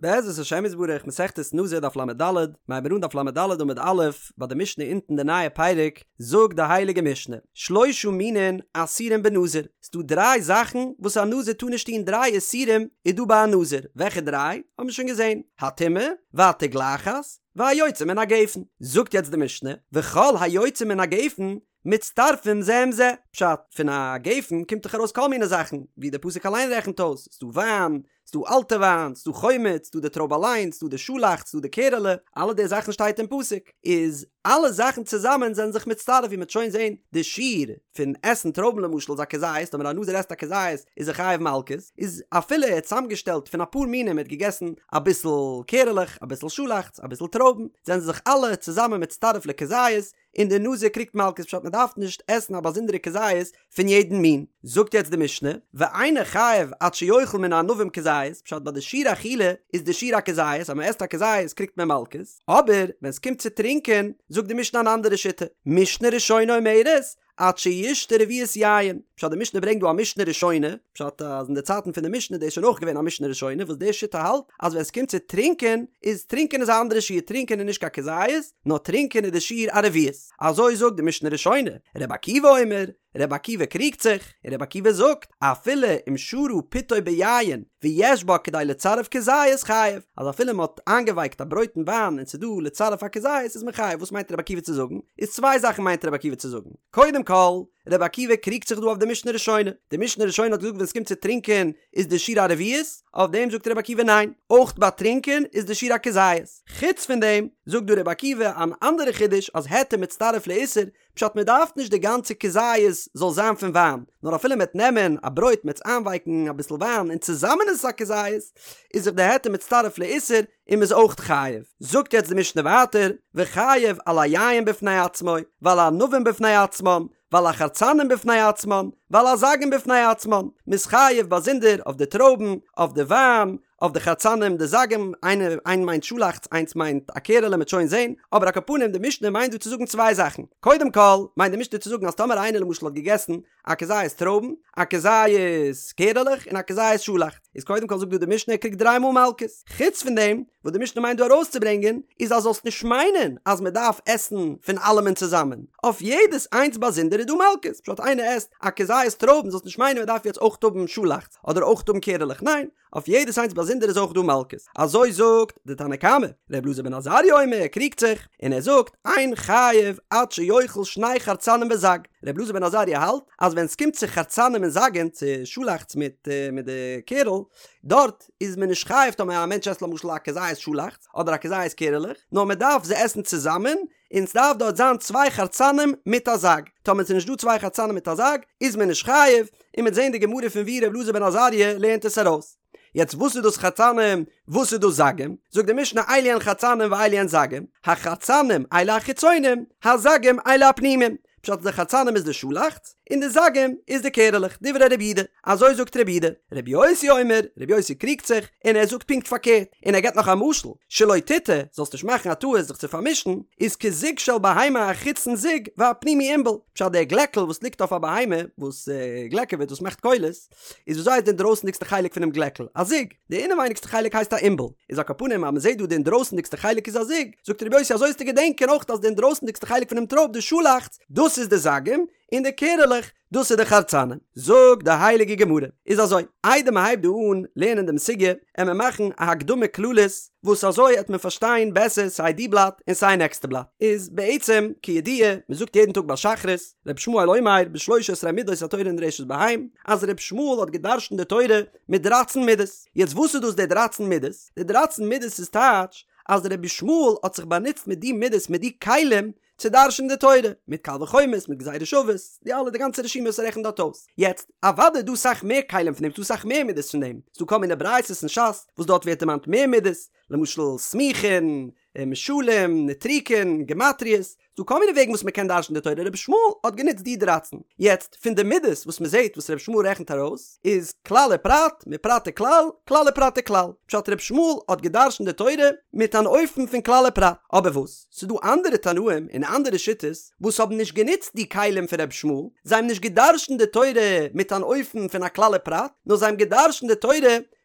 בעזרת השם יתברך מסכת נזיר דף לד, מ'הייבן אן דף לד עמוד א', ביי די משנה אונטן די נייע פרק, זאגט די הייליגע משנה, שלושה מינין אסורים בנזיר, ס'דא דריי זאכן וואס א נזיר טאר נישט טון, דריי איסורים איז דא ביי א נזיר, וועלכע דריי? האבן מיר שוין געזען, הטומאה, והתגלחת, והיוצא מן הגפן, זאגט יעצט די משנה, וכל היוצא מן הגפן מצטרפים זה עם זה, פשט, פון א גפן קומט דאך ארויס כל מיני זאכן, ווי דער פסוק אליין רעכנט אויס, ס'דא וויין, ס'דא אלטע וויין, ס'דא חומץ, ס'דא די טרויב אליין, ס'דא די שאלאכץ, ס'דא די קערעלע, אלע די זאכן שטייט אין פסוק, איז אלע זאכן צוזאמען זענען זיך מצטרף ווי מ'וועט שוין זען, די שיעור פון עסן טרויבן למשל איז א כזית, טאמער א נזיר עסט א כזית איז ער חייב מלקות, איז אפילו ער האט צוזאמגעשטעלט פון אפאר מינים ער האט געגעסן אביסל קערעלעך, אביסל שאלאכץ, אביסל טרויבן, זענען זיך אלע צוזאמען מצטרף לכזית, און דער נזיר קריגט מלקות פשט מען דארף נישט עסן א באזונדערע כזית פון יעדן מין. זאגט יעצט די משנה, ואינו חייב עד שיאכל מן הענבים כזית, פשט ביי די שיעור אכילה איז די שיעור א כזית, אז מען עסט א כזית קריגט מען מלקות, אבער ווען עס קומט צו טרינקען זאגט די משנה אן אנדערע שיטה, משנה ראשונה אומרת, עד שישתה רביעית יין, פשט די משנה ברענגט דא א משנה ראשונה, פשט אז אין די צייטן פון די משנה איז דאס שוין אויך געווען א משנה ראשונה וואס די שיטה האלט אז ווען עס קומט צו טרינקען איז טרינקען איז א אנדערע שיעור טרינקען איז נישט קיין כזית נאר טרינקען איז די שיעור א רביעית אזוי זאגט די משנה ראשונה, רבי עקיבא אומר, רבי עקיבא קריגט זיך, און רבי עקיבא זאגט, אפילו אם שרה פתו ביין ויש בה כדי לצרף כזית חייב, אז אפילו מען האט איינגעווייקט א ברויט אין וויין און ס'איז דא לצרף א כזית איז מען חייב, וואס מיינט רבי עקיבא צו זאגן? איז צוויי זאכן מיינט רבי עקיבא צו זאגן, קודם כל, רבי עקיבא קריגט זיך דא אויף די משנה ראשונה, די משנה ראשונה האט געזאגט ווען ס'קומט צו טרינקען איז די שיעור א רביעית, אויף דעם זאגט רבי עקיבא ניין, אויך ביי טרינקען איז די שיעור א כזית. חוץ פון דעם זאגט דא רבי עקיבא אן אנדערע חידוש אז היתר מצטרף לאיסור, פשט מען דארף נישט די גאנצע כזית זאל זיין פון וויין, נאר אפילו מ'עט נעמען א ברויט מ'עט עס איינווייקן אביסל וויין און צוזאמען איז עס א כזית, איז זיך די היתר מצטרף לאיסור און מ'איז אויך חייב. זאגט יעצט די משנה ווייטער, וחייב על היין בפני עצמו, ועל הענבים בפני עצמן, ועל החרצנים בפני עצמן, ועל הזגים בפני עצמן, מ'איז חייב באזונדער אויף די טרויבן, אויף די וויין, אויף די חרצנים די זגים, איינע איין מיינט שאלאכץ איינס מיינט א קערעלע מ'עט שוין זעהן, אבער על כל פנים די משנה מיינט דא צו זאגן צוויי זאכן, קודם כל מיינט די משנה צו זאגן אז טאמער איינער למשל האט געגעסן א כזית טרויבן, א כזית קערעלעך און א כזית שאלאכץ, איז קודם כל זאגט דא די משנה ער קריגט דריי מאל מלקות, חוץ פון דעם וואס די משנה מיינט דא ארויסצוברענגען איז אז זאלסט נישט מיינען אז מען דארף עסן פון אלעמען צוזאמען, אויף יעדעס איינס באזונדער איז דא מלקות, פשט איינער עסט א כזית טרויבן זאלסט נישט מיינען מען דארף יעצט אויך האבן שאלאכץ אדער אויך האבן קערעלעך, ניין, אויף יעדעס איינס באזונדער איז אויך דא מלקות. אזוי זאגט די תנא קמא. ר' אלעזר בן עזריה אומר, ער קריגט זיך, און ער זאגט, אין חייב עד שיאכל שני חרצנים וזג. ר' אלעזר בן עזריה האלט אז ווען ס'קומט צו חרצנים און זגים, צו שאלאכץ מיט מיט די קערל, דארט איז מען נישט חייב טאמער א מענטש עסט למשל א כזית שאלאכץ אדער א כזית קערעלעך, נאר מען דארף זיי עסן צוזאמען, און ס'דארף דארט זיין צוויי חרצנים מיט א זג, טאמער ס'איז נישט דא צוויי חרצנים מיט א זג, איז מען נישט חייב, און מ'וועט זען די גמרא פון ווי ר' אלעזר בן עזריה לערנט עס ארויס. יעצט וואס איז דאס חרצנים, וואס איז דאס זגים? זאגט די משנה אלו הן חרצנים ואלו הן זגים, החרצנים אלו החיצונים, הזגים אלו הפנימים, פשט די חרצנים איז די שאלאכץ, און די זגים איז די קערעלעך, דברי רבי יהודה, אזוי זאגט רבי יהודה, רבי יוסי אומר, רבי יוסי קריגט זיך, און ער זאגט פונקט פארקערט, און ער געבט נאך א משל, שלא תטעה, זאלסט נישט מאכן א טעות זיך צו פארמישן, איז כזוג של בהמה החיצון זוג והפנימי ענבל, פשט דער גלעקל וואס ליגט אויף א בהמה, וואס גלעקעוועט, וואס מאכט קולות, איז וויאזוי הייסט די אינדרויסנדיגסטע חלק פונעם גלעקל? א זוג. די אינעווייניגסטע חלק הייסט א ענבל. איז על כל פנים אז מ'זעט דא די אינדרויסנדיגסטע חלק איז א זוג, זאגט רבי יוסי אזוי זאלסטו געדענקען אויך אז די אינדרויסנדיגסטע חלק פונעם טרויב די שאלאכץ, דאס איז די זגים, און די קערעלעך, דאס איז די חרצנים. זאגט די הייליגע גמרא. איז אזוי, איידער מ'הייבט דא אן לערנען דעם סוגיא, עמער מאכן א הקדמה כללית, וואס אזוי עט מען פארשטיין בעסער סיי די בלאט און סיי נעקסטע בלאט. איז בעצם, כידוע, מ'זאגט יעדן טאג ביי שחרית, ר' ישמעאל אומר בשלוש עשרה מידות התורה נדרשת בהן, אז ר' ישמעאל האט געדרשנט די תורה מיט דרייצן מידות. יעצט וואס איז דאס די דרייצן מידות? די דרייצן מידות איז טייטש אז ר' ישמעאל האט זיך באנוצט מיט די מידות מיט די כלים צו דרש'נען די תורה, מיט קל וחומר'ס, מיט גזירה שוות, די אלע די גאנצע רשימה וואס ער רעכנט דארט אויס. יעצט, אוודאי איז דא סאך מער כלים פון דעם, ס'דא סאך מער מידות פון דעם, ס'דא כל מיני ברייתות אין ש"ס וואס דארט ווערט דערמאנט מער מידות, למשל סמוכין, משלים, נוטריקון, גמטריאות. ס'דא כל מיני וועגן וואס מ'קען דרש'ן די תורה, רבי ישמעאל האט גענוצט די דרייצן. יעצט, פון די מידות וואס מ'זעט וואס רבי ישמעאל רעכנט ארויס, איז כלל ופרט, מפרט וכלל, כלל ופרט וכלל. פשט רבי ישמעאל האט געדרש'נט די תורה מיט אן אופן פון כלל ופרט. אבער וואס? ס'דא אנדערע תנאים און אנדערע שיטות וואס האבן נישט גענוצט די כלים פון רבי ישמעאל, זיי האבן נישט געדרש'נט די תורה מיט אן אופן פון א כלל ופרט, נאר זיי האבן געדרש'נט די תורה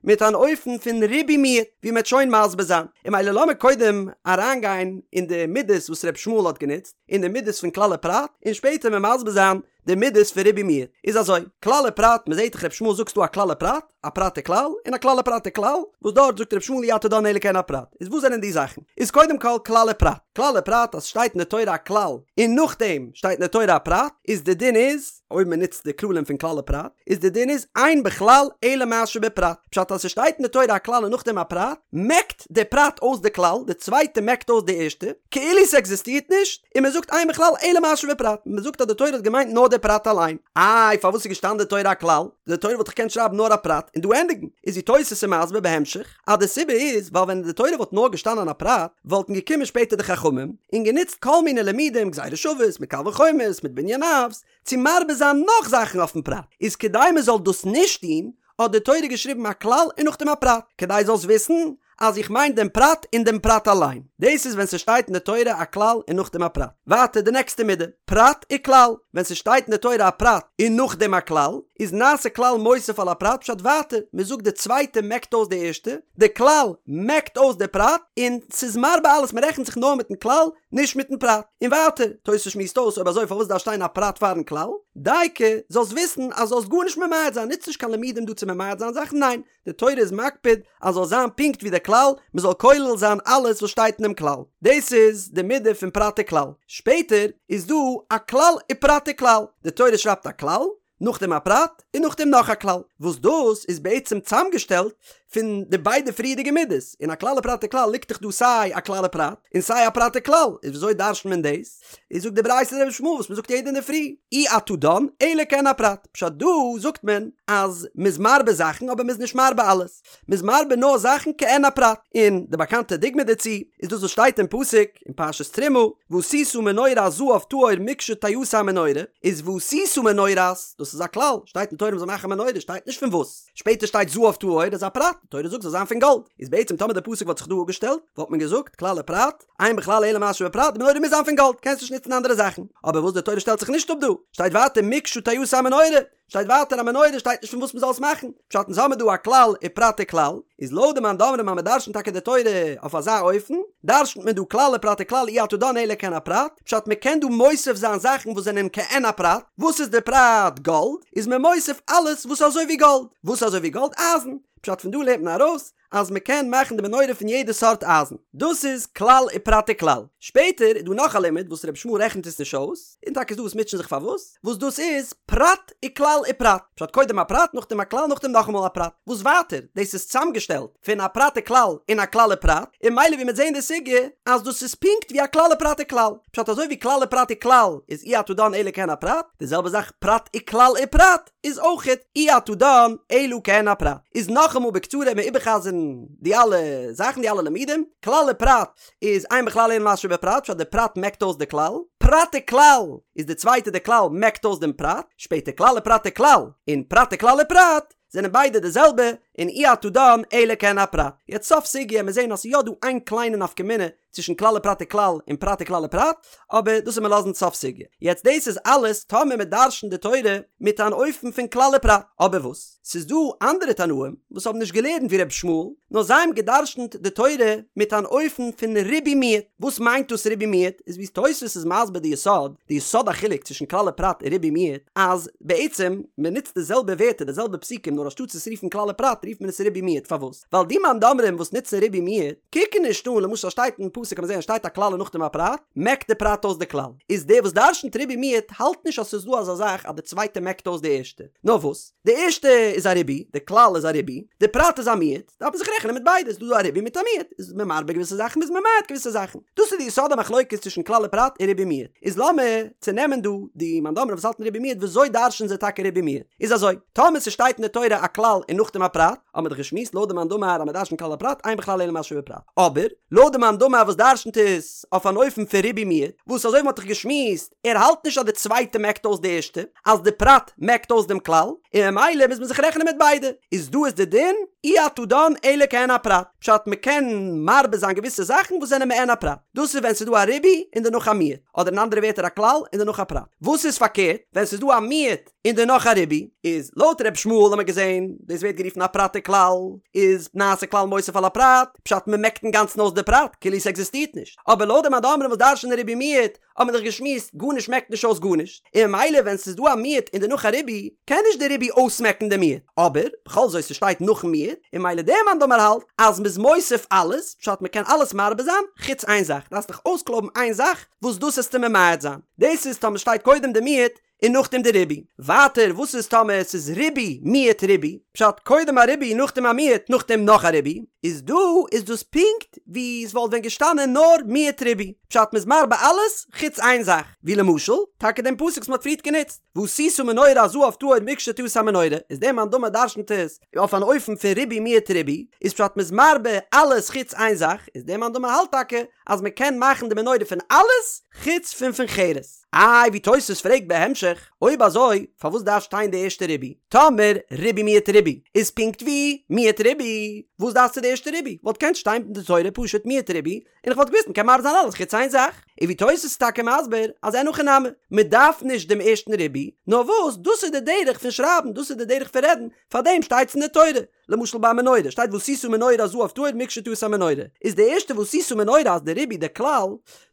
מיט אן אופן פון ריבוי מיעוט, ווי מ'עט שוין מסביר זיין. און ממילא לאמיר קודם אריינגיין אין די מידות וואס רבי ישמעאל האט גענוצט, אין די מידות פון כלל ופרט, און שפעטער מיר מסביר זיין די מידות פון ריבוי מיעוט. איז אזוי, כלל ופרט, מ'זעט דאך רבי ישמעאל זאגט ס'דא א כלל ופרט, א פרט וכלל, און א כלל ופרט וכלל, וואס דארט זאגט רבי ישמעאל אי אתה דן אלא כעין הפרט. איז וואס זענען די זאכן? איז קודם כל כלל ופרט. כלל ופרט אז ס'שטייט אין די תורה א כלל, און נאכדעם שטייט אין די תורה א פרט, איז די דין איז, אויב מען נוצט די כללים פון כלל ופרט, איז די דין איז אין בכלל אלא מה שבפרט, פשט אז ס'שטייט אין די תורה א כלל און נאכדעם א פרט, מעקט די פרט אויס די כלל, די צווייטע מעקט אויס די ערשטע, כאילו ס'עקזיסטירט נישט, און מען זאגט אין בכלל אלא מה שבפרט, מען זאגט אז די תורה האט געמיינט נאר די פרט אליין. איי פארוואס איז געשטאנען די תורה א כלל? די תורה וואלט דאך געקענט שרייבן נאר א פרט און דא ענדיגן, איז ווי תוס' איז מסביר בהמשך, אז די סיבה איז ווייל ווען אין די תורה וואלט נאר געשטאנען א פרט, וואלטן געקומען שפעטער די חכמים און גענוצט כל מיני לימודים גזירה שוות מיט קל וחומר'ס מיט בנין אבות צו מרבה זיין נאך זאכן אויפן פרט, איז כדי מען זאל דאס נישט טון האט די תורה געשריבן א כלל און נאכדעם א פרט, כדי זאלסט וויסן אז איך מיין דעם פרט און דעם פרט אליין. דאס איז ווען ס'שטייט אין די תורה א כלל און נאכדעם א פרט. ווייטער די נעקסטע מידה, פרט וכלל, ווען ס'שטייט אין די תורה א פרט און נאכדעם א כלל, איז נעשה כלל מוסיף על הפרט פשט ווייטער, מ'זאגט די צווייטע מעקט אויס די ערשטע, די כלל מעקט אויס די פרט, און ס'איז מרבה אלעס מ'רעכנט זיך נאר מיטן כלל, נישט מיטן פרט. און ווייטער, תוס' שמועסט אויס אויב אזוי פארוואס דארף שטיין א פרט פארן כלל? דייקא, זאלסט וויסן אז זאלסט גארנישט ממעט זיין, נוץ נישט קיין לימודים דא צו ממעט זיין זאכן, ניין, די תורה איז מקפיד אז זאל זיין פונקט ווי די כלל, מען זאל כולל זיין אלעס וואס שטייט אינעם כלל. דאס איז די מידה פון פרט וכלל. שפעטער איז דא א כלל ופרט וכלל. די תורה שרייבט א כלל, נאכדעם א פרט, און נאכדעם נאך א כלל, וואס דאס איז בעצם צאמגעשטעלט פון די ביידע פריערדיגע מידות. אין א כלל ופרט וכלל ליגט דאך דא סיי א כלל ופרט, און סיי א פרט וכלל. איז וויאזוי דרש'נט מען דאס? איז זאגט די ברייתא דרבי ישמעאל וואס מען זאגט יעדע אינדערפרי, אי אתה דן אלא כעין הפרט, פשט דא זאגט מען אז מ'איז מרבה זאכן אבער מ'איז נישט מרבה אלעס, מ'איז מרבה נאר זאכן כעין הפרט, און די באקאנטע דוגמא דערצו איז דאס וואס שטייט אין פסוק אין פרשת תרומה, ועשית מנורת זהב טהור מקשה תעשה המנורה, איז ועשית מנורת, דאס איז א כלל, שטייט אין תורה מ'זאל מאכן א מנורה, שטייט נישט פון וואס, שפעטער שטייט זהב טהור איז א פרט, די תורה זאגט זאל זיין פון גאלד, איז בעצם טאמער די פסוק וואלט זיך דא אפגעשטעלט, וואלט מען געזאגט, כלל ופרט, אין בכלל אלא מה שבפרט, די מנורה מוז זיין פון גאלד, קענסט נישט נוצן אנדערע זאכן. אבער וואס די תורה שטעלט זיך נישט אפ דא, שטייט ווייטער מקשה תעשה המנורה, שטייט ווייטער א מנורה שטייט נישט פון וואס מ'זאל עס מאכן, פשט אונז האמיר דא א כלל ופרט וכלל, איז לויט די מאן דאמרים אז מ'דרשנ'ט טאקע די תורה אויף אזא אופן, דרשנ'ט מען דא כלל ופרט וכלל אי אתה דן אלא כעין הפרט, פשט מ'קען דא מוסיף זיין זאכן וואס זענען כעין הפרט, וואס איז די פרט? גאלד, איז מען מוסיף אלעס וואס איז אזוי ווי גאלד, וואס איז אזוי ווי גאלד? אייזן, פשט פון דא לערנט מען ארויס אז מען קען מאכן די מנורה פון יעדע סארט אייזן. דאס איז כלל ופרט וכלל. שפעטער איז דא נאך א לימוד וואס רבי ישמעאל רעכנט עס נישט אויס, און טאקע איז דא וואס מוטשען זיך פארוואס, וואס דאס איז פרט וכלל ופרט. פשט קודם א פרט נאכדעם א כלל נאכדעם נאכאמאל א פרט. וואס ווייטער דאס איז צוזאמגעשטעלט פון א פרט וכלל און א כלל ופרט, און ממילא ווי מ'עט זעהן די סוגיא אז דאס איז פונקט ווי א כלל ופרט וכלל. פשט אזוי ווי כלל ופרט וכלל איז אי אתה דן אלא כעין הפרט, די זעלבע זאך פרט וכלל ופרט. איז אויכעט אי אתה דן אלא כעין הפרט. איז נאכאמאל בקצרה מיר איבערחזר'ן די אלע זאכן די אלע לימודים, כלל ופרט איז אין בכלל אלא מה שבפרט פשט די פרט מעקט אויס די כלל, פרט וכלל איז די צווייטע די כלל מעקט אויס דעם פרט, שפעטער כלל ופרט וכלל און פרט וכלל ופרט זענען ביידע די זעלבע און אי אתה דן אלא כעין הפרט. יעצט סוף סוגיא מיר זעהן אז ס'איז יא דא איין קליינע נפקא מינה צווישן כלל ופרט וכלל און פרט וכלל ופרט, אבער דאס וועט מען לאזן סוף סוגיא. יעצט דאס איז אלעס טאמער מען דרשנ'ט די תורה מיט אן אופן פון כלל ופרט. אבער וואס? ס'איז דא אנדערע תנאים וואס האבן נישט געלערנט ווי ר' ישמעאל, נאר זיי האבן געדרשנ'ט די תורה מיט אן אופן פון ריבוי מיעוט. וואס מיינט דאס ריבוי מיעוט? איז ווי תוספות איז מסביר די יסוד, די יסוד החילוק צווישן כלל ופרט און ריבוי מיעוט, אז בעצם מען נוצט די זעלבע ווערטער די זעלבע פסוקים נאר אנשטאט עס רופן כלל ופרט רופט מען עס ריבוי מיעוט. פארוואס? ווייל די מאן דאמרים וואס נוצן ריבוי מיעוט, קוקן נישט אן, למשל שטייט אין פסוק קען מען זען עס שטייט א כלל און נאכדעם א פרט, מעקט די פרט אויס די כלל. איז דער וואס דרשנ'ט ריבוי מיעוט האלט נישט אז ס'איז דא אזא זאך אז די צווייטע מעקט אויס די ערשטע. נאר וואס? די ערשטע איז א ריבוי, די כלל איז א ריבוי, די פרט איז א מיעוט, דארף מען זיך רעכענען מיט ביידע, ס'איז דא א ריבוי מיט א מיעוט, איז מען מרבה געוויסע זאכן איז מען ממעט געוויסע זאכן. דאס איז די יסוד המחלוקת צווישן כלל ופרט און ריבוי מיעוט. איז לאמיר צונעמען דא די מאן דאמרים וואס האלטן ריבוי מיעוט וויאזוי דרש'נען זיי טאקע ריבוי מיעוט. איז אזוי, טאמער ס'שטייט אין די תורה א כלל און נאכדעם א פרט, האבן מיר דאך געשמועסט לויט די מאן דאמר אז מ'דרש'נט כלל ופרט אין בכלל אלא מה שבפרט. אבער, לויט די מאן דאמר וואס. וואס דרשנ'ט עס אויף אן אופן פון ריבוי מיעוט, וואס אזוי ווי מ'האט דאך געשמועסט, ער האלט נישט אז די צווייטע מעקט אויס די ערשטע, אז די פרט מעקט אויס דעם כלל, און ממילא מוז מען זיך רעכענען מיט ביידע, איז דא איז די דין, אי אתה דן אלא כעין הפרט, פשט מ'קען מרבה זיין געוויסע זאכן וואס זענען מעין הפרט, דאס איז ווען ס'איז דא א ריבוי און דערנאך א מיעוט, אדער אין אנדערע ווערטער א כלל און דערנאך א פרט. וואס איז פארקערט ווען ס'איז דא א מיעוט און דערנאך א ריבוי, איז לויט ר' ישמעאל האט מען געזען, דאס ווערט גערופן א פרט וכלל, איז נעשה כלל מוסיף על הפרט, פשט מ'מעקט אינגאנצן אויס די פרט, כאילו ס'עקזיסטירט נישט, אבער לויט די מאן דאמרים וואס דרש'נען ריבוי מיעוט, האט מען דאך געשמועסט, גארנישט מעקט נישט אויס גארנישט, און ממילא ווען ס'איז דא א מיעוט און דערנאך א ריבוי, קען נישט די ריבוי אויסמעקן די מיעוט, אבער, בכל זאת ס'שטייט נאכן מיעוט, און ממילא דער מאן דאמר האלט אז מ'איז מוסיף אלעס, פשט מ'קען אלעס מרבה זיין, חוץ איין זאך, דארפסט דיך אויסקלויבן איין זאך וואס דאס עסטו ממעט זיין, דאס איז טאמער שטייט קודם די מיעוט און נאכדעם די ריבוי. ווייטער וואס איז טאמער עס איז ריבוי מיעוט ריבוי, פשט קודם א ריבוי נאכדעם א מיעוט נאכדעם נאך א ריבוי, איז דא איז דאס פונקט ווי עס וואלט ווען געשטאנען נאר מיעוט ריבוי, פשט מ'איז מרבה אלעס חוץ איין זאך, ווי למשל טאקע דעם פסוק וואס מ'האט פריערט גענוצט, ועשית מנורת זהב טהור מקשה תעשה המנורה, איז דער מאן דאמר דרשנ'ט עס אויף אן אופן פון ריבוי מיעוט ריבוי, איז פשט מ'איז מרבה אלעס חוץ איין זאך, איז דער מאן דאמר האלט טאקע אז מ'קען מאכן די מנורה פון אלעס חוץ פון פון חרס. איי ווי תוס' פרעגט בהמשך, אויב אזוי פארוואס דארף שטיין די ערשטע ריבוי? טאמער ריבוי מיעוט ריבוי איז פונקט ווי מיעוט ריבוי, וואס דארפסטו די ערשטע ריבוי? וואלט געקענט שטיין אין די תורה פשוט מיעוט ריבוי און איך וואלט געוואוסט מ'קען מרבה זיין אלעס חוץ איין זאך. און ווי תוס' איז טאקע מסביר אז אין הכי נמי, מ'דארף נישט דעם ערשטן ריבוי, נאר וואס דאס איז די דרך פון שרייבן, דאס איז די דרך פון רעדן, פארדעם שטייטס אין די תורה. למשל ביי מנורה שטייט ועשית מנורת זהב טהור מקשה תעשה המנורה, איז די ערשטע ועשית מנורה אז די ריבוי די כלל,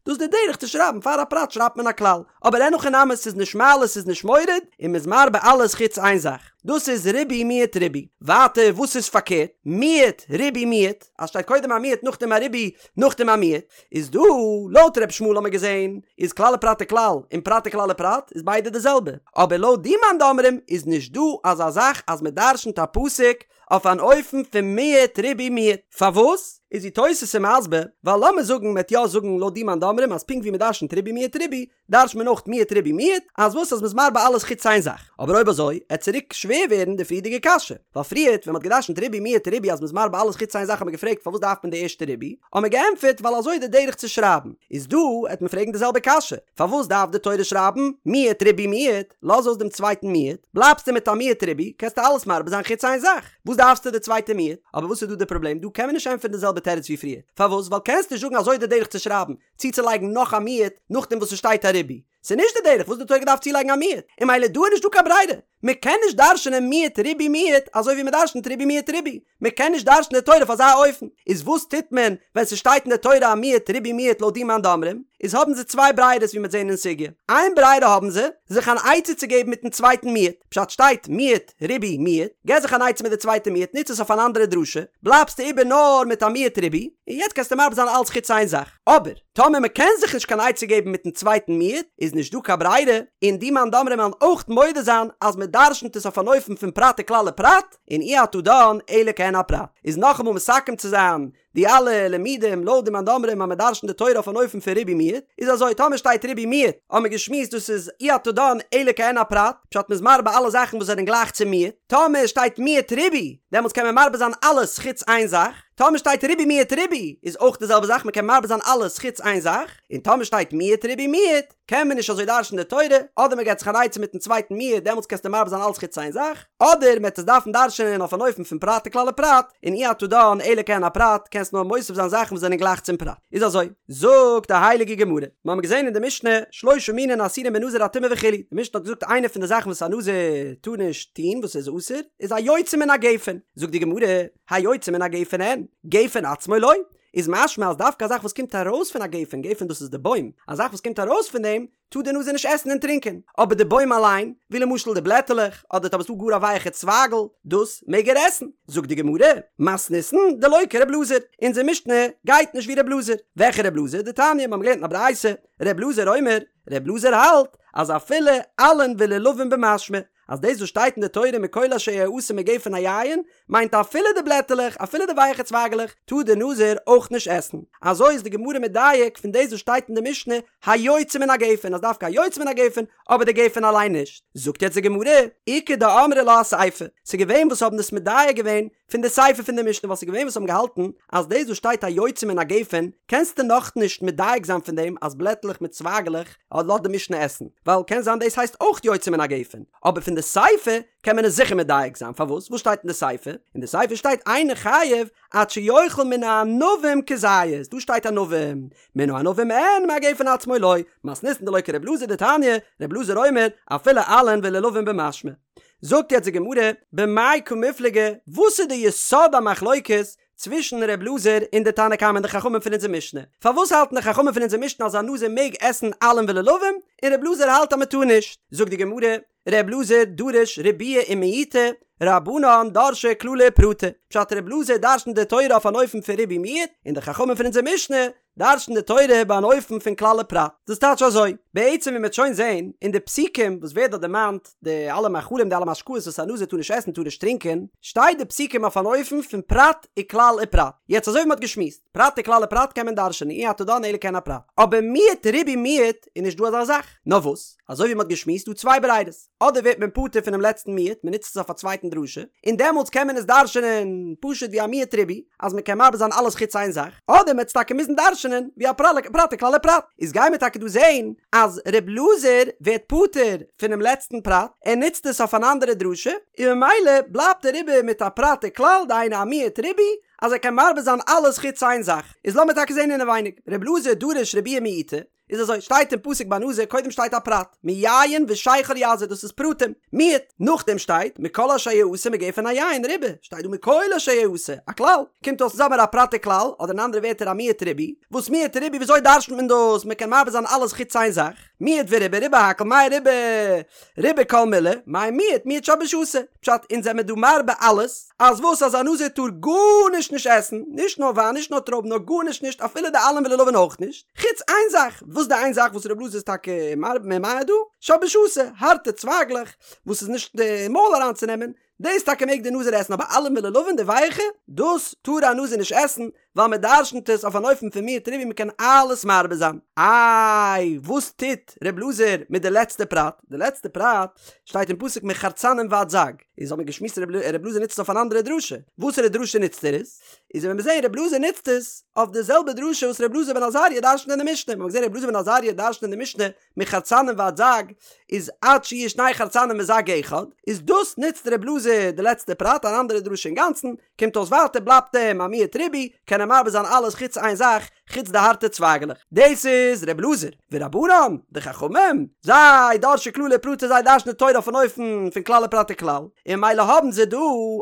דאס די דרך צו שרייבן פאר א פרט שרייבט מען א כלל, אבער אין הכי נמי ס'איז נישט מעלה ס'איז נישט מוריד, און מ'איז מרבה אלעס חוץ איין זאך, דאס איז ריבוי מיעוט ריבוי. ווייטער וואס איז פארקערט, מיעוט ריבוי מיעוט, אז שטייט קודם א מיעוט נאכדעם א ריבוי נאכדעם א מיעוט, איז דא, לויט ר' ישמעאל האמיר געזען, איז כלל ופרט וכלל, און פרט וכלל ופרט, איז ביידע די זעלבע. אבער לויט די מאן דאמרים איז נישט דא אזא זאך אז מען דרשנ'ט א פסוק אויף אן אופן פון מיעוט ריבוי מיעוט. פארוואס? איז ווי תוס' איז מסביר, ווייל לאמיר זאגן מ'עט יא זאגן לויט די מאן דאמרים אז פונקט ווי מען דרשנ'ט ריבוי מיעוט ריבוי, דרש'נט מען אויך מיעוט ריבוי מיעוט, אז וואס אז מ'איז מרבה אלעס חוץ איין זאך. אבער אויב אזוי, עט צוריק שווער ווערן די פריערדיגע קשיא. ווייל פריערט ווען מ'האט געדרשנ'ט ריבוי מיעוט ריבוי אז מ'איז מרבה אלעס חוץ איין זאך האט מען געפרעגט פארוואס דארף מען די ערשטע ריבוי, האט מען געענטפערט ווייל אזוי איז די דרך צו שרייבן. איז דא עט מען פרעגן די זעלבע קשיא, פארוואס דארף די תורה שרייבן מיעוט ריבוי מיעוט, לאז אויס דעם צווייטן מיעוט, בלייבסטו מיט א מיעוט ריבוי, קענסטו אלעס מרבה זיין חוץ איין זאך, וואס דארפסטו די צווייטע מיעוט? אבער וואס איז דא די פראבלעם? דא קען מען נישט ענטפערן די זעלבע תירוץ ווי פריער. פארוואס? ווייל קענסט נישט זאגן אזוי איז די דרך צו שרייבן, צוצולייגן נאך א מיעוט נאכדעם וואס ס'שטייט א ריבוי. ס'איז נישט די דרך וואס די תורה געדארפט צולייגן א מיעוט, און ממילא דא איז נישט דא קיין ברירה. מ'קען נישט דרש'נען מיעוט ריבוי מיעוט אזוי ווי מ'דרש'נט ריבוי מיעוט ריבוי. מ'קען נישט דרש'נען די תורה אויף אזא אופן. איז וואס טוט מען ווען ס'שטייט אין די תורה א מיעוט ריבוי מיעוט לויט די מאן דאמרים? איז האבן זיי צוויי ברירות ווי מ'עט זען אין סוגיא. איין ברירה האבן זיי, זיך אן עצה צו געבן מיטן צווייטן מיעוט. פשט שטייט מיעוט ריבוי מיעוט, געב זיך אן עצה מיט די צווייטע מיעוט, נוץ עס אויף אן אנדערע דרשה, בלייבסטו איבער נאר מיט א מיעוט ריבוי, און יעצט קענסטו מרבה זיין אלץ חוץ איין זאך. אבער, טאמער מען קען זיך נישט קיין עצה געבן מיטן צווייטן מיעוט, איז נישט דא קיין ברירה, און די מאן דאמרים וועלן אויך מודה זיין אז מען דרשנ'ט עס אויף אן אופן פון פרט וכלל ופרט, און אי אתה דן אלא כעין הפרט. איז נאכאמאל מסכם צו זיין די אלע לימודים לויט די מאן דאמרים אז מען דרשנ'ט די תורה אויף אן אופן פון ריבוי מיעוט, איז אזוי, טאמער שטייט ריבוי מיעוט, האבן מיר געשמועסט דאס איז אי אתה דן אלא כעין הפרט, פשט מ'איז מרבה אלע זאכן וואס זענען גלייך צו מיעוט, טאמער שטייט מיעוט ריבוי, דעמאלטס קען מען מרבה זיין אלעס חוץ איין זאך, טאמער שטייט ריבוי מיעוט ריבוי, איז אויך די זעלבע זאך מ'קען מרבה זיין אלעס חוץ איין זאך, און טאמער שטייט מיעוט ריבוי מיעוט, קען מען נישט אזוי דרש'ן די תורה, אדער מ'געט זיך אן עצה מיטן צווייטן מיעוט דעמאלטס קענסטו מרבה זיין אלעס חוץ איין זאך, אדער מ'עט עס דארפן דרש'ענען אויף אן אופן פון פרט וכלל ופרט, און אי אתה דן אלא כעין הפרט, קענסט נאר מוסיף זיין זאכן וואס זענען גלייך צום פרט. איז אזוי, זאגט די הייליגע גמרא, מ'האמיר געזען אין די משנה, שלושה מינין אסורין בנזיר הטומאה וכו', די משנה האט געזאגט איינע פון די זאכן וואס א נזיר טאר נישט טון וואס איז אסור, איז היוצא מן הגפן, זאגט די גמרא, היוצא מן הגפן אין, גפן עצמו לא, איז משמע אז דווקא א זאך וואס קומט ארויס פון א גפן, גפן דאס איז די בוים, א זאך וואס קומט ארויס פון דעם, טאר דער נזיר נישט עסן און טרינקען, אבער די בוים אליין, ווי למשל די בלעטעלעך, אדער טאמער ס'דא גאר א ווייעכע צווייגל, דאס מעג ער עסן. זאגט די גמרא, מתניתין דלא כר' אלעזר, אונזער משנה גייט נישט ווי ר' אלעזר. וועלכע ר' אלעזר? דתניא, מיר האבן געלערנט אין א ברייתא, ר' אלעזר אומר, ר' אלעזר האלט, אז אפילו עלין ולולבין במשמע, אז דאס וואס שטייט אין די תורה מכל אשר יעשה מגפן היין, מיינט אפילו די בלעטעלעך, אפילו די ווייעכע צווייגעלעך, טאר דער נזיר אויך נישט עסן. אזוי איז די גמרא מדייק פון דאס וואס שטייט אין די משנה היוצא מן הגפן, אז דווקא היוצא מן הגפן, אבער די גפן אליין נישט. זאגט יעצט די גמרא, איכא דאמרי לה אסיפא, ס'איז געווען וואס האבן דאס מדייק געווען פון די סיפא פון די משנה ווייל ס'איז געווען וואס האבן געהאלטן אז דאס וואס שטייט היוצא מן הגפן קענסטו נאכנישט מדייק זיין פון דעם אז בלעטלעך מיט צווייגלעך לאזט די משנה עסן ווייל קען זיין דאס הייסט אויך יוצא מן הגפן אבער פון די סיפא קען מען עס זיכער מדייק זיין פארוואס וואס שטייט אין די סיפא? אין די סיפא שטייט אינו חייב עד שיאכל מן הענבים כזית דא שטייט ענבים מן הענבים אין מהגפן עצמו לא מתניתין דלא כר' אלעזר דתניא ר' אלעזר אומר אפילו עלין ולולבין במשמע זאגט יעצט די גמרא, במאי קמיפלגי, וואס איז די יסוד המחלוקת צווישן ר' אלעזר און די תנא קמא און די חכמים פון אונזער משנה? פארוואס האלטן די חכמים פון אונזער משנה אז א נזיר מעג עסן עלין ולולבים, און ר' אלעזר האלט אז מען טאר נישט? זאגט די גמרא, ר' אלעזר דריש ריבויי ומיעוטי, רבנן דרשי כללי ופרטי, פשט ר' אלעזר דרשנט די תורה אויף אן אופן פון ריבוי מיעוט, און די חכמים פון אונזער משנה דרש'ן די תורה ביי אן אופן פון כלל ופרט. דאס טייטש אזוי, בעצם ווי מ'וועט שוין זען אין די פסוקים וואס ווערט דארט דערמאנט די אלע מאכלים די אלע משקאות וואס א נזיר טאר נישט עסן טאר נישט טרינקען, שטייט די פסוקים אויף אן אופן פון פרט וכלל ופרט. יעצט אזוי ווי מ'האט געשמועסט, פרט וכלל ופרט קען מען דרש'ענען אי אתה דן אלא כעין הפרט. אבער מיעוט ריבוי מיעוט איז נישט דא אזא זאך. נאר וואס, אזוי ווי מ'האט געשמועסט דא צוויי ברירות. אדער ווערט מען פטור פונעם לעצטן מיעוט, מען נוצט עס אויף א צווייטן דרשה, און דעמאלטס קען מען עס דרש'נען פשוט ווי א מיעוט ריבוי, אז מען קען מרבה זיין אלעס חוץ איין זאך, אדער מען וועט עס טאקע מוזן דרש'נען ווי א פרט וכלל ופרט. איז גייען מיר טאקע דא זען אז ר' אלעזר ווערט פטור פונעם לעצטן פרט, ער נוצט עס אויף אן אנדערע דרשה, און ממילא בלייבט ער איבער מיט א פרט וכלל, דהיינו א מיעוט ריבוי, אז ער קען מרבה זיין אלעס חוץ איין זאך. איז לאמיר טאקע זען אינעווייניג, ר' אלעזר דריש ריבויי ומיעוטי, איז אזוי, שטייט אין פסוק ביי נזיר, קודם שטייט א פרט, מיין ושכר יזיר, דאס איז פרטים, מיעוט, נאכדעם שטייט, מכל אשר יעשה מגפן היין, ריבה, שטייט דא מכל אשר יעשה, א כלל, קומט אויס אונז האמיר א פרט וכלל, אדער אין אנדערע ווערטער א מיעוט ריבוי, וואס מיעוט ריבוי וויאזוי דרש'נט מען דאס, מען קען מרבה זיין אלעס חוץ איין זאך, מיעוט וריבה, ריבה הכל, מאי ריבה, ריבה כל מילי, מאי מיעוט, מיעוט שבישתא, פשט, אונז זעמיר דא מרבה אלעס, אז וואס אז א נזיר טאר גארנישט נישט עסן, נישט נאר וויין נישט נאר טרויבן נאר גארנישט נישט אפילו די עלים ולולבין אויך נישט, חוץ איין זאך, וואס די איין זאך וואס ר' אלעזר איז טאקע מרבה ממעט דא? שבישתא, הארטע צווייגלעך וואס איז נישט די מויל אריינצונעמען, דאס טאקע מעג די נזיר עסן אבער עלים ולולבין די ווייעכע, דאס טאר א נזיר נישט עסן, ווייל מען דרשנ'ט עס אויף אן אופן פון מיעוט ריבוי מען קען אלעס מרבה זיין. איי וואס טוט ר' אלעזר מיט די לעצטע פרט? די לעצטע פרט שטייט אין פסוק מחרצנים ועד זג, איז האט מען געשמועסט ר' אלעזר נוצט עס אויף אן אנדערע דרשה, וואסערע דרשה נוצט ער עס? איז ווען מיר זעהן ר' אלעזר נוצט עס אויף די זעלבע דרשה וואס ר' אלעזר בן עזריה דרשנ'ט אין די משנה, מ'האט געזעהן ר' אלעזר בן עזריה דרשנ'ט אין די משנה מחרצנים ועד זג איז עד שיהיו שני חרצנים וזג אחד, איז דאס נוצט ר' אלעזר די לעצטע פרט אן אנדערע דרשה אינגאנצן, קומט אויס ווייטער בלייבט אים א מיעוט ריבוי, קען ער מרבה זיין אלעס חוץ איין זאך, חוץ די הארטע צווייגעלעך. דאס איז ר' אלעזר. ורבנן, די חכמים, זיי דרשי כללי ופרטי זיי דרש'נען די תורה אויפן אופן פון כלל ופרט וכלל, און ממילא האבן זיי דא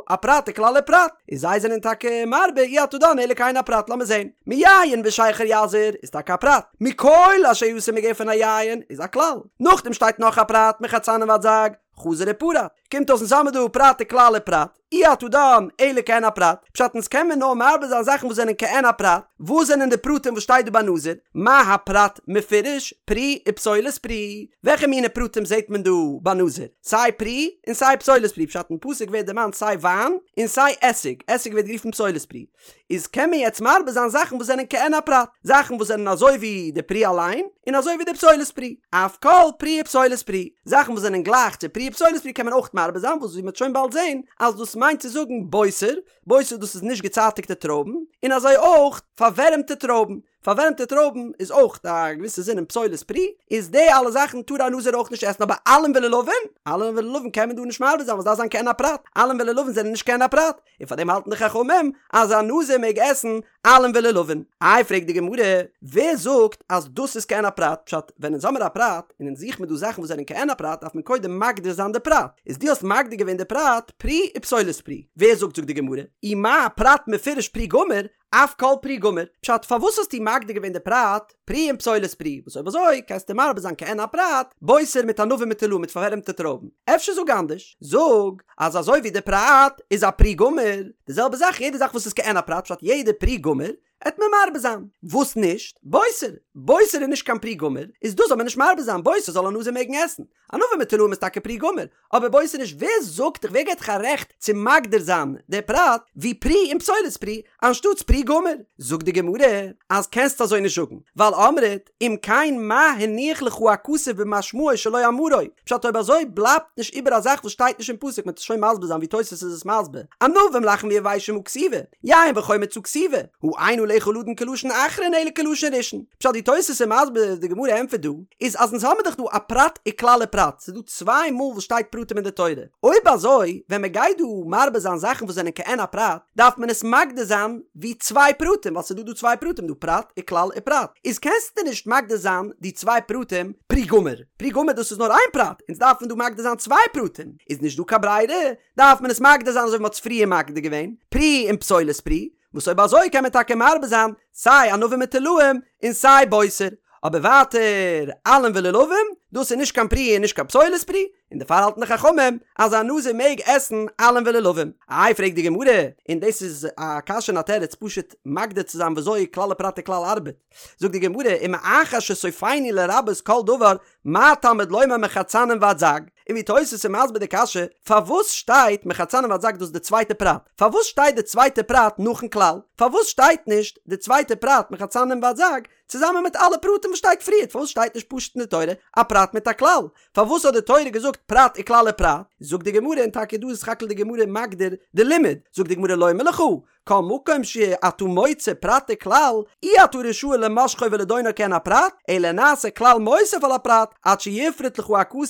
א פרט וכלל ופרט, און זיי זענען טאקע מרבה אי אתה דן אלא כעין הפרט לאמיר זען, מיין ושכר יזיר איז טאקע א פרט, מכל אשר יעשה מגפן היין איז א כלל, נאכדעם שטייט נאך א פרט מחרצנים ועד זג, חזר ופרט, קומט אויס אונז האמיר דא פרט וכלל ופרט, אי אתה דן אלא כעין הפרט, פשט אונז קען מען נאר מרבה זיין זאכן וואס זענען כעין הפרט, וואס זענען די פרטים וואס שטייט דא ביי נזיר, מה הפרט מפורש, פרי ופסולת פרי, וועלכע מיני פרטים זעט מען דא ביי נזיר, סיי פרי און סיי פסולת פרי, פשט אין פסוק ווערט דערמאנט סיי וויין און סיי עסיג, עסיג ווערט גערופן פסולת פרי, איז קען מען יעצט מרבה זיין זאכן וואס זענען כעין הפרט, זאכן וואס זענען אזוי ווי די פרי אליין, און אזוי ווי די פסולת פרי, אף כל פרי ופסולת פרי, זאכן וואס זענען גלייך צו פרי ופסולת פרי קען מען אויך מרבה זיין, וואס ווי מ'וועט שוין באלד זען אז דאס מיינט צו זאגן בוסר, בוסר דאס איז נישט געצייטיגטע טרויבן, און אזוי אויך פארווערעמטע טרויבן, פארווערעמטע טרויבן איז אויך א געוויסע זין אין פסולת פרי, איז די אלע זאכן טאר א נזיר אויך נישט עסן אבער עלים ולולבין, עלים ולולבין קען מען דא נישט מרבה זיין ווייל ס'דארף זיין כעין הפרט, עלים ולולבין זענען נישט כעין הפרט, און פאר דעם האלטן די חכמים אז א נזיר מעג עסן עלים ולולבין. איי פרעגט די גמרא, ווער זאגט אז דאס איז כעין הפרט, פשט, ווען אונז האמיר א פרט, און אונז זוכן מיר דא זאכן וואס זענען כעין הפרט דארף מען קודם מגדיר זיין די פרט, איז דו האסט מגדיר געווען די פרט פרי ופסולת פרי, ווער זאגט זאגט די גמרא, אי מה פרט מפורש פרי גמור, אף כל פרי גמור, פשט פארוואס האסטו מגדיר געווען די פרט פרי און פסולת פרי, וואס אויב אזוי קענסטו מרבה זיין כעין הפרט, בוסר מיט ענבים מיט תולעים מיט פארווערעמטע טרויבן, אפשר זאג אנדערש, זאג אז אזוי ווי די פרט איז א פרי גמור, די זעלבע זאך יעדע זאך וואס איז כעין הפרט פשט יעדע פרי גמור, עט מען מרבה זיין. וואס נישט? בוסר! בוסר איז נישט קיין פרי גמור, איז דאס זאל מען נישט מרבה זיין, בוסר זאל א נזיר מעגן עסן. ענבים מיט תולעים איז טאקע פרי גמור, אבער בוסר נישט. ווער זאגט דיך, ווער געט דיך א רעכט צו מגדיר זיין די פרט ווי פרי און פסולת פרי אנשטאטס פרי גמור? זאגט די גמרא אז קענסט אזוי נישט זאגן, ווייל אמרת אם כן מה הניח לך הכתוב במשמעו שלא אמרו, פשט אויב אזוי בלייבט נישט איבער א זאך וואס שטייט נישט אין פסוק, מ'וועט עס שוין מסביר זיין ווי תוספות איז עס מסביר, ענבים לחים ויבשים הא כתיבי, יין וחומץ הא כתיבי, הא אין עליך לדון כלשון אחרון אלא כלשון ראשון. פשט ווי תוס' איז מסביר די גמרא ענטפערט דא, איז אז אונז האמיר דאך דא א פרט וכלל ופרט, ס'איז דא צוויי מאל וואס שטייט פרטים אין די תורה, אויב אזוי ווען מ'גייט דא מרבה זיין זאכן וואס זענען כעין א פרט, דארף מען עס מגדיר זיין ווי צוויי פרטים, ווייל ס'איז דא דא צוויי פרטים דא פרט וכלל ופרט, איז קענסטו נישט מגדיר זיין די צוויי פרטים פרי גמור, פרי גמור דאס איז נאר איין פרט, אונז דארפן דא מגדיר זיין צוויי פרטים, איז נישט דא קיין ברירה, דארף מען עס מגדיר זיין אזוי ווי מ'האט עס פריער מגדיר געווען, פרי און פסולת פרי, וואס אויב אזוי קען מען טאקע מרבה זיין סיי ענבים מיט תולעים און סיי בוסר, אבער ווייטער עלים ולולבים, דאס איז נישט קיין פרי און נישט קיין פסולת פרי, און דערפאר האלטן די חכמים אז א נזיר מעג עסן עלים ולולבים. איי פרעגט די גמרא, און דאס איז א קשיא און א תירוץ פשוט מגדיר צו זיין וויאזוי כלל ופרט וכלל ארבעט, זאגט די גמרא, ומאחר שסופינו לרבות כל דבר מה תלמוד לומר מחרצנים ועד זג? און ווי תוס' איז מסביר די קשיא, פארוואס שטייט מחרצנים ועד זג דאס איז די צווייטע פרט? פארוואס שטייט די צווייטע פרט נאכן כלל? פארוואס שטייט נישט די צווייטע פרט מחרצנים ועד זג צוזאמען מיט אלע פרטים וואס שטייט פריערט? פארוואס שטייט נישט פשוט אין די תורה א פרט מיט א כלל? פארוואס האט די תורה געזאגט פרט וכלל ופרט? זאגט די גמרא, און טאקע דא איז סך הכל די גמרא מגדיר די לימוד, זאגט די גמרא לומר לך, כל מקום שאתה מוצא פרט וכלל, אי אתה רשאי למשכו ולדונו כעין הפרט, אלא נעשה כלל מוסיף על הפרט, עד שיפרוט לך הכתוב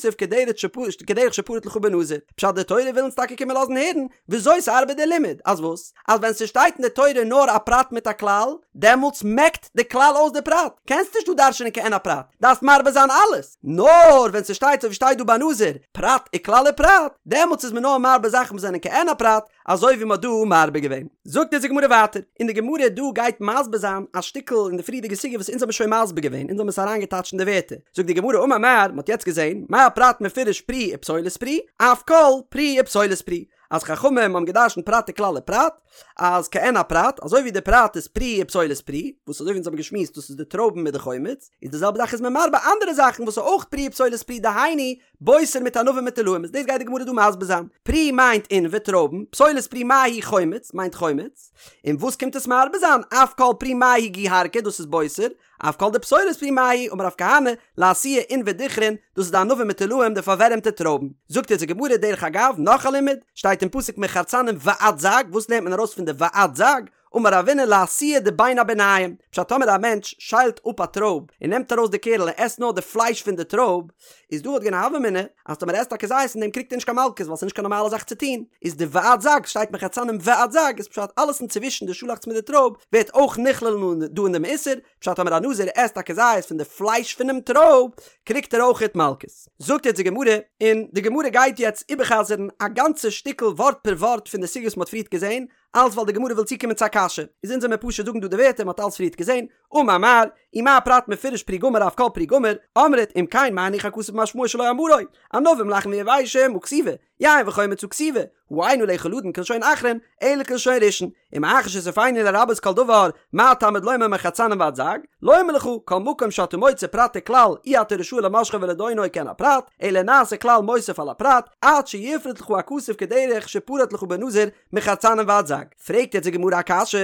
כדרך שפרט לך בנזיר. פשט די תורה וויל אונז טאקע קומען לאזן הערן וויאזוי ס'ארבעט די לימוד, אז וואס? אז ווען ס'שטייט אין די תורה נאר א פרט מיט א כלל, דעמאלטס מעקט די כלל אויס די פרט, קענסט נישט דא דרש'נען כעין הפרט, דארפסט מרבה זיין אלעס, נאר ווען ס'שטייט אזוי ווי שטייט דא ביי נזיר, פרט וכלל ופרט, דעמאלטס איז מען נאר מרבה זאכן וואס זענען כעין הפרט, אזוי ווי מ'האט דא מרבה געווען. זאגט אונז די גמרא ווייטער, און די גמרא דא גייט מסביר זיין א שטיקל אין די פריערדיגע סוגיא וואס אונז האבן שוין מסביר געווען, אונז האבן עס אריינגעטייטשט אין די ווערטער, זאגט די גמרא אמר מר, מ'האט יעצט געזען, מה פרט מפורש פרי ופסולת פרי, אף כל פרי ופסולת פרי, אז חכמים האבן געדרשנט פרט וכלל ופרט, אז כעין הפרט, אזוי ווי די פרט איז פרי ופסולת פרי, וואס אזוי ווי אונז האבן געשמועסט דאס איז די טרויבן מיט די חומץ, איז די זעלבע זאך איז מען מרבה אנדערע זאכן וואס איז אויך פרי ופסולת פרי דהיינו בוסר מיט ענבים מיט תולעים איז דאס גייט די גמרא דא מסביר זיין, פרי מיינט עינבי טרויבן, פסולת פרי מאי היא חומץ מיינט חומץ, און וואס קומט עס מרבה זיין, אף כל פרי מאי היא גוהרקי דאס איז בוסר, אף כל דפסולת פרי מאי היא אמר רב כהנא, לאתויי עינבי דכרין, דאס איז די ענבים מיט תולעים די פארווערעמטע טרויבן. זאגט אונז די גמרא דרך אגב נאך א לימוד, שטייט אין פסוק מחרצנים ועד זג, וואס לערנט מען ארויס פון די ועד זג? אמר רבינא לאתויי דבין הביניים, פשט טאמער א מענטש שיילט אפ א טרויב און נעמט ארויס די קערל און עסט נאר די פלייש פון די טרויב, איז דא וואלט געווען א הוה אמינא אז טאמער ער עסט א כזית פון דעם קריגט ער נישט קיין מלקות ווייל ס'איז נישט קיין נארמאלע זאך צו טון, איז די ועד זג שטייט מחרצנים ועד זג איז פשט אלעס אינצווישן די שאלאכץ מיט די טרויב ווערט אויך נכלל דא אין דעם איסור, פשט טאמער א נזיר עסט א כזית פון די פלייש פונעם טרויב קריגט ער אויכעט מלקות. זאגט יעצט די גמרא, און די גמרא גייט יעצט איבערחזר'ן א גאנצע שטיקל ווארט פער ווארט פון די סוגיא וואס מ'האט פריערט געזען, אלץ ווייל די גמרא וויל צוקומען צו א קשיא, איז אונז עמיר פשוט זאגן דא די ווערטער מ'האט אלץ פריערט געזען, אמר מר, ומה פרט מפורש פרי גמור אף כל פרי גמור, אמרת אם כן מה הניח הכתוב במשמעו שלא אמרו, ענבים לחים ויבשים הא כתיבי, יין וחומץ הא כתיבי, הא אין עליך לדון כלשון אחרון, אלא כלשון ראשון, ומאחר שסופינו לרבות כל דבר, מה תלמוד לומר מחרצנים ועד זג, לומר לך, כל מקום שאתה מוצא פרט וכלל, אי אתה רשאי למשכו ולדונו כעין הפרט, אלא נעשה כלל מוסיף על הפרט, עד שיפרוט לך הכתוב כדרך שפרט לך בנזיר, מחרצנים ועד זג. פרעגט יעצט די גמרא א קשיא,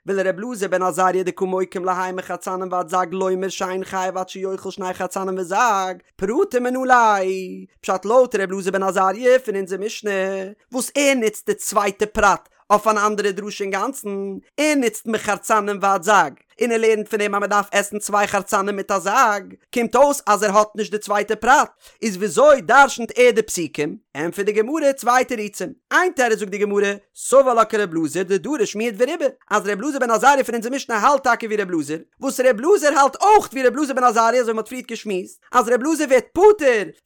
ולר' אלעזר בן עזריה דקא מוקים להאי מחרצנים ועד זג לומר שאין חייב עד שיאכל שני חרצנים וזג, פרטים מנא ליה, פשט לויט ר' אלעזר בן עזריה פון אונזער משנה, וואס ער נוצט די צווייטע פרט אויף אן אנדערע דרשה אינגאנצן, ער נוצט מחרצנים ועד זג, און ער לערנט פון דעם אז מען דארף עסן צוויי חרצנים מיט א זג, קומט אויס אז ער האט נישט די צווייטע פרט, איז וויאזוי דרשנ'ט ער די פסוקים? ענטפערט די גמרא צוויי תירוצים, איין תירוץ זאגט די גמרא, סבר לה כר' אלעזר דדריש מיעוט וריבה, אז ר' אלעזר בן עזריה פון אונזער משנה האלט טאקע ווי ר' אלעזר, וואס ר' אלעזר האלט אויך ווי ר' אלעזר בן עזריה אזוי ווי מען האט פריערט געשמועסט, אז ר' אלעזר ווערט פטור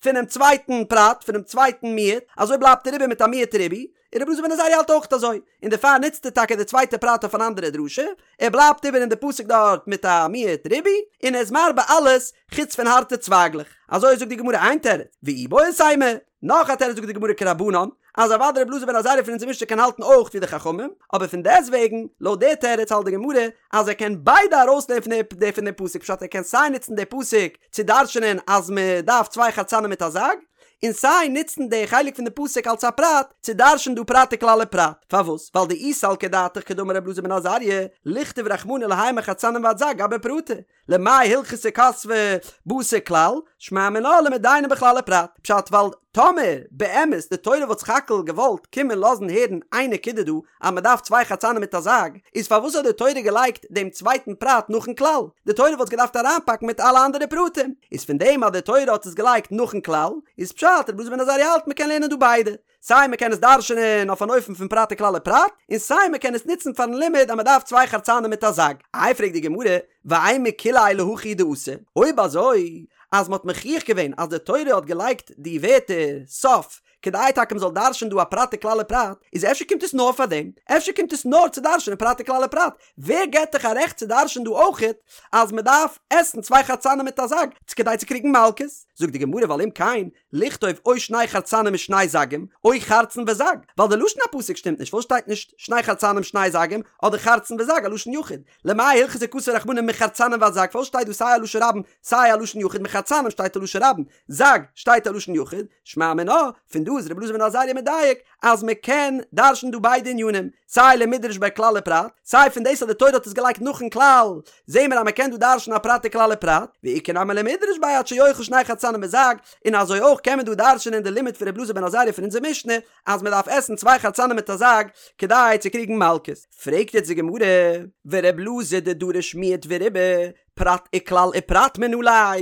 פונעם צווייטן פרט, פונעם צווייטן מיעוט, אזוי בלייבט ער איבער מיט א מיעוט ריבוי, און רבי אלעזר בן עזריה האלט אויך אזוי, און דערפאר נוצט ער טאקע די צווייטע פרט אויף אן אנדערע דרשה, ער בלייבט איבער אין די פסוק דארט מיט א מיעוט ריבוי, און ער איז מרבה אלעס חוץ פון הארטע צווייגלעך. אזוי זאגט די גמרא איין תירוץ, ואיבעית אימא, נאך א תירוץ זאגט די גמרא כרבנן, אז אוודאי רבי אלעזר בן עזריה פון אונזער משנה קען האלטן אויך ווי די חכמים, אבער פון דעסטוועגן, לויט די תירוץ האלט די גמרא אז ער קען ביידע ארויסלערנען פון די פון דעם פסוק, פשט ער קען סיי נוצן די פסוק צו דרש'נען אז מען דארף צוויי חרצנים מיט א זג, און סיי נוצן די חלק פון די פסוק אלס א פרט צו דרש'ן דא פרט וכלל ופרט. פארוואס? ווייל דאי סלקא דעתך כדאמר רבי אלעזר בן עזריה, לכתוב רחמנא להאי מחרצנים ועד זג גבי פרטא. למאי הלכתא כתביה בתר כלל, שמע מינה למדיינה בכלל ופרט. פשט ווייל טאמער באמת די תורה וואלט סך הכל געוואלט קומען לאזן הערן איין נקודה דא אז מען דארף צוויי חרצנים מיט א זג, איז פארוואס האט די תורה געלייגט דעם צווייטן פרט נאכן כלל? די תורה וואלט עס געדארפט אריינפאקן מיט אלע אנדערע פרטים. איז פון דעם אז די תורה האט עס געלייגט נאכן כלל, איז פשט רבי אלעזר בן עזריה האלט מען קען לערנען דא ביידע. סיי מען קען עס דרש'נען אויף אן אופן פון פרט וכלל ופרט, און סיי מען קען עס נוצן פארן לימוד אז מען דארף צוויי חרצנים מיט א זג. איי פרעגט די גמרא, ואימא כוליה להכי הוא דאתא, אויב אזוי אז מען האט מוכיח געווען אז די תורה האט געלייגט די ווערטער סוף כדי טאקע מען זאל דרש'נען דא א פרט וכלל ופרט, איז אפשר קומט עס נאר פאר דעם? אפשר קומט עס נאר צו דרש'נען פרט וכלל ופרט? ווער געבט דיך א רעכט צו דרש'נען דא אויכעט אז מען דארף עסן צוויי חרצנים מיט א זג כדי צו קריגן מלקות? זאגט די גמרא ווייל אם כן לכתוב או שני חרצנים ושני זגים, או חרצן וזג, ווייל די לשון הפסוק שטימט נישט, פארוואס שטייט נישט שני חרצנים שני זגים, אדער חרצן וזג א לשון יחיד? למאי הלכתא כתב רחמנא מחרצנים ועד זג, פארוואס שטייט דא סיי א לשון רבים סיי א לשון יחיד, מחרצנים שטייט א לשון רבים, זג שטייט א לשון יחיד, שמע מינה, פון דא איז רבי אלעזר בן עזריה מדייק אז מען קען דרש'ן דא ביידע ענינים, סיי למידרש ביה כלל ופרט, סיי פון דאס אז די תורה האט עס געלייגט נאכן כלל, זעהן מיר אז מען קען דא דרש'ן א פרט וכלל ופרט, ואיכא נמי למידרש ביה עד שיאכל שני חרצנים וזג, און אזוי אויך קען מען דא דרש'נען די לימוד פון רבי אלעזר בן עזריה פון אונזער משנה, אז מען דארף עסן צוויי חרצנים מיט א זג כדי צו קריגן מלקות. פרעגט יעצט די גמרא, ורבי אלעזר דדריש מיעוט וריבוי, פרט וכלל ופרט מנא ליה,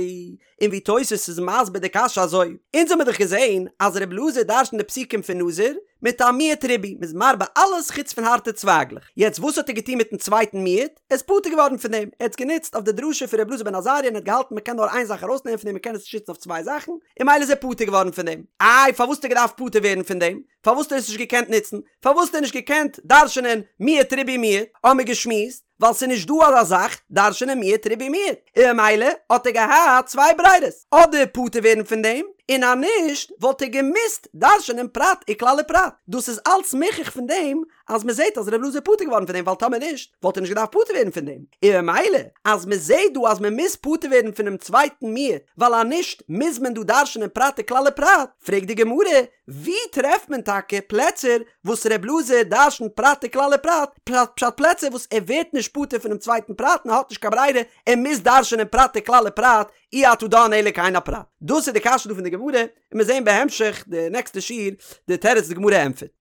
און ווי תוס' איז מסביר די קשיא אזוי, אונז האמיר דאך געזען אז ר' אלעזר דרש'נט די פסוקים פון נזיר מיט א מיעוט ריבוי, מ'איז מרבה אלעס חוץ פון הארטע צווייגלעך, יעצט וואס האט ער געטון מיטן צווייטן מיעוט? ער איז פטור געווארן פון דעם, ער האט עס גענוצט אויף די דרשה פון ר' אלעזר בן עזריה און ער האט געהאלטן מ'קען נאר איין זאך ארויסנעמען פון דעם מ'קען עס נישט נוצן אויף צוויי זאכן, און ממילא איז ער פטור געווארן פון דעם. איי פארוואס האט ער געדארפט פטור ווערן פון דעם? פארוואס האט ער עס נישט געקענט נוצן? פארוואס האט ער נישט געקענט דרש'נען מיעוט ריבוי מיעוט? האמיר געשמועסט ווייל ס'איז נישט דא אזא זאך דרש'נען מיעוט ריבוי מיעוט, און ממילא האט ער געהאט צוויי ברירות, אדער פטור ווערן פון דעם, און אז נישט וואלט ער געמוזט דרש'נען פרט וכלל ופרט. דאס איז אלץ מוכח פון דעם אז מ'זעט אז ר' אלעזר איז פטור געווארן פון דעם ווייל טאמער נישט וואלט ער נישט געדארפט פטור ווערן פון דעם, און ממילא אז מ'זעט דא אז מ'מוז פטור ווערן פונעם צווייטן מיעוט ווייל אז נישט מוז מען דא דרש'נען פרט וכלל ופרט, פרעגט די גמרא, ווי טרעפט מען טאקע פלעצער וואס ר' אלעזר דרש'נט פרט וכלל ופרט, פשט פלעצער וואס ער ווערט נישט פטור פונעם צווייטן פרט און ער האט נישט קיין ברירה ער מוז דרש'נען פרט וכלל ופרט, אי אתה דן אלא כעין הפרט. דאס איז די קשיא דא פון די גמרא, און מיר זעהן בהמשך די נעקסטע שיעור די תירוץ די גמרא ענטפערט.